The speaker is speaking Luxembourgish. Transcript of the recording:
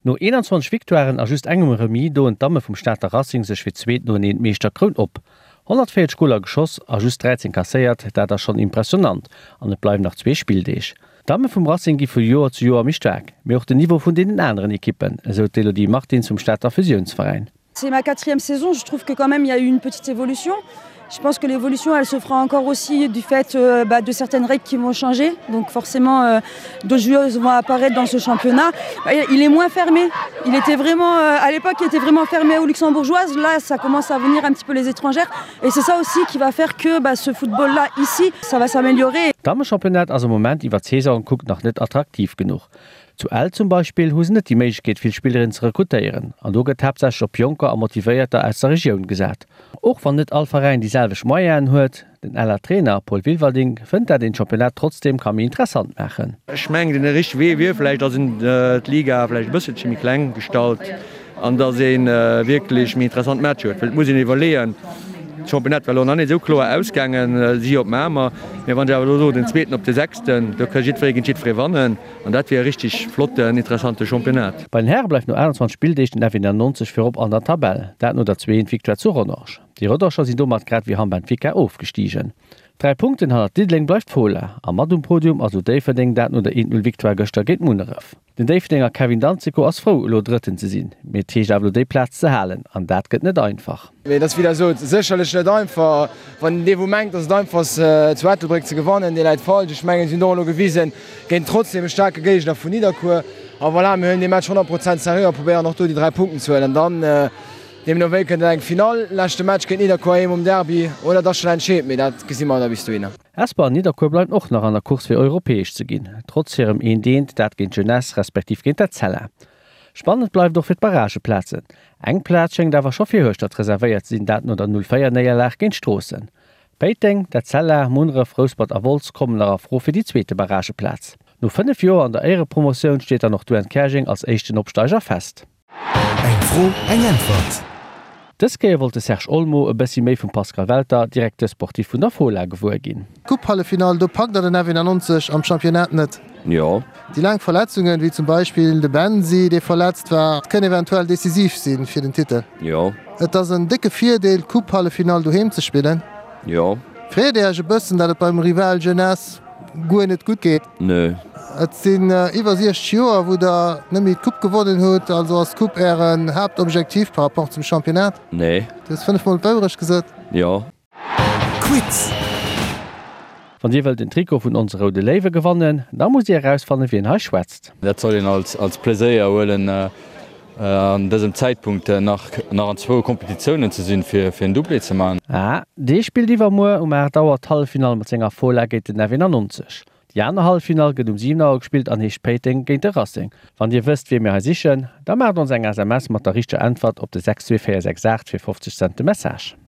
No 21 Victoiren a just engem Remis doen d'Damme vum Stater Racing sech fir d'zweet noeneen d'Meeschterkroun op. 140 Goler geschoss a just 13 kasséiert, dat ass schonn impressionant an et bleiwen nach zwee Spilldeeg. D'Damme vum Racing gi vu Joer zu Joer méi staark, mee och den Niveau vun deenen aneren Ekippen, esou d'Elodie Martins vum Stater Fusiounsveräin. C'est ma quatrième saison, je trouve que quand même il y a eu une petite évolution. Je pense que l'évolution elle se fera encore aussi du fait euh, bah, de certaines règles qui vont changer. Donc forcément euh, d'autres joueuses vont apparaître dans ce championnat. Il est moins fermé. Il était vraiment euh, à l'époque il était vraiment fermé aux luxembourgeoises. Là ça commence à venir un petit peu les étrangères et c'est ça aussi qui va faire que bah, ce football là ici ça va s'améliorer. Damechampionnat ass am Moment iwwer d'Saison gekuckt nach net attraktiv genuch. Zu Ell zum Beispill hu se net déi Méiglechkeet vill Spillerinnen ze rekrutéieren an do gëtt haaptsächlech op Jonker a Motivéierter aus der Regioun gesat. Och wann net all Veräin déi selwecht Moyenen huet, den Eller Trainer Paul Wilwerding fënnt dat een d'Championnat trotzdeem ka méi interessant maachen. Ech mengen den richtege Wee wier vläicht, datt een d'Liga vläicht e bësselche méi kleng gestalt an datt ee wierklech méi interessant Matcher huet. Well et muss een iwwerleeën, d'Championnat war elo nach net esou kloer ausgaangen, si op Mamer, mä wann ech awer elo soen, den Zweeten op de Sechsten, do ka jiddweree géint jiddweree wannen. An dat wier e richteg flotten, interessante Championnat. Bei den Häre bleift no 28 Spilldeeg den F91 virop an der Tabell, dat no der 2 Victoire zu Rodange. Déi Rodanger sinn domat grad wéi Hamm Benfica ofgestigen. 3 Punkten hannert Diddeleng bleift d'Fola a mat um Podium ass elo Déifferdeng, dat no der 1, 0 Victoire gëschter géint Munneref. Den Déifferdenger Kevin Danzico ass frou elo Drëtten ze sinn, mee et heescht awer elo déi Plaz ze halen an dat gëtt net einfach. Mee et ass wéi der sot sécherlech net einfach. Wann dee wou mengt, datt et einfach ass zu Ettelbréck ze gewannen, dee läit falsch. Ech mengen si hunn et och elo gewisen géint trotzdem e staarke Géigner vun Nidderkuer. A voilà, mir huelen dee Match 100 Prozent seriö a probéieren och do déi 3 Punkten ze huelen. An dann deemno wéi kënnt et eng Finall, leschte Match géint Nidderkuer heem um Derby oder et ass schonn entscheet, mee dat gesi mer da bis dohinner. Hesper an Nidderkuer bleiwen och nach an der Course fir europäesch ze ginn, trotz hirem eent eent, dat géint d'Jeunesse respektiv géint d'Etzella. Spannend bleift och fir d'Barrageplazen. Eng Plaz schéngt awer scho fir Hueschtert reservéiert ze sinn, dat no der 0, 4 Néierlag géint Stroossen. Péiteng, d'Etzella, Munneref, Rouspert a Wolz kommen nach a Fro fir déi zweete Barrageplaz. No 5 Joer an der Éierepromotioun steet dann och d'UN Käerjeng als éischten Opsteiger fest. Eng Fro, eng Äntwert. Dës Kéier wollt de Serge Olmo e bëssi méi vum Pascal Welter, Directeur sportif vun der Fola, gewuer ginn. Coupe-Halleffinall, do packt der den F91 am Championnat net. Jo. Déi laang Verletzungen, wéi zum Beispill de Bensi, dee verletzt war, kënne eventuell decisiv si fir den Titel. Jo. Et ass en décke Virdeel, d'Coupe-Halleffinall doheem ze spillen. Jo. Freet Dir Iech e bëssen, datt et beim Rival Jeunesse guer net gutt geet? Nö. Et sinn iwwer 60 Joer, wou Der net méi d'Coupe gewonnen hutt. Also ass d'Coupe Ären Haaptobjektiv par rapport zum Championnat? Nee. Du hues 5 mol d'Wourecht gesot. Jo. Quiz. Wann Dir wëllt en Trikot vun onse Roude Léiwe gewannen, da musst Dir erausfannen, wien hei schwätzt. Dat soll een als Pleséier huelen, an dësem Zäitpunkt nach an zwou Kompetitiounen ze sinn, fir en Doublé ze maachen. Ah, dee spillt iwwermuer um 8 Auer d'Halleffinall mat senger Fola géint den F91. Déi aner Halleffinall gëtt um 7 Auer gespillt an heescht Péiteng géint de Racing. Wann Dir wësst, wee mir hei sichen, da maacht ons eng SMS mat der richteger Äntwert op de 62468 fir 50 Cent de Message.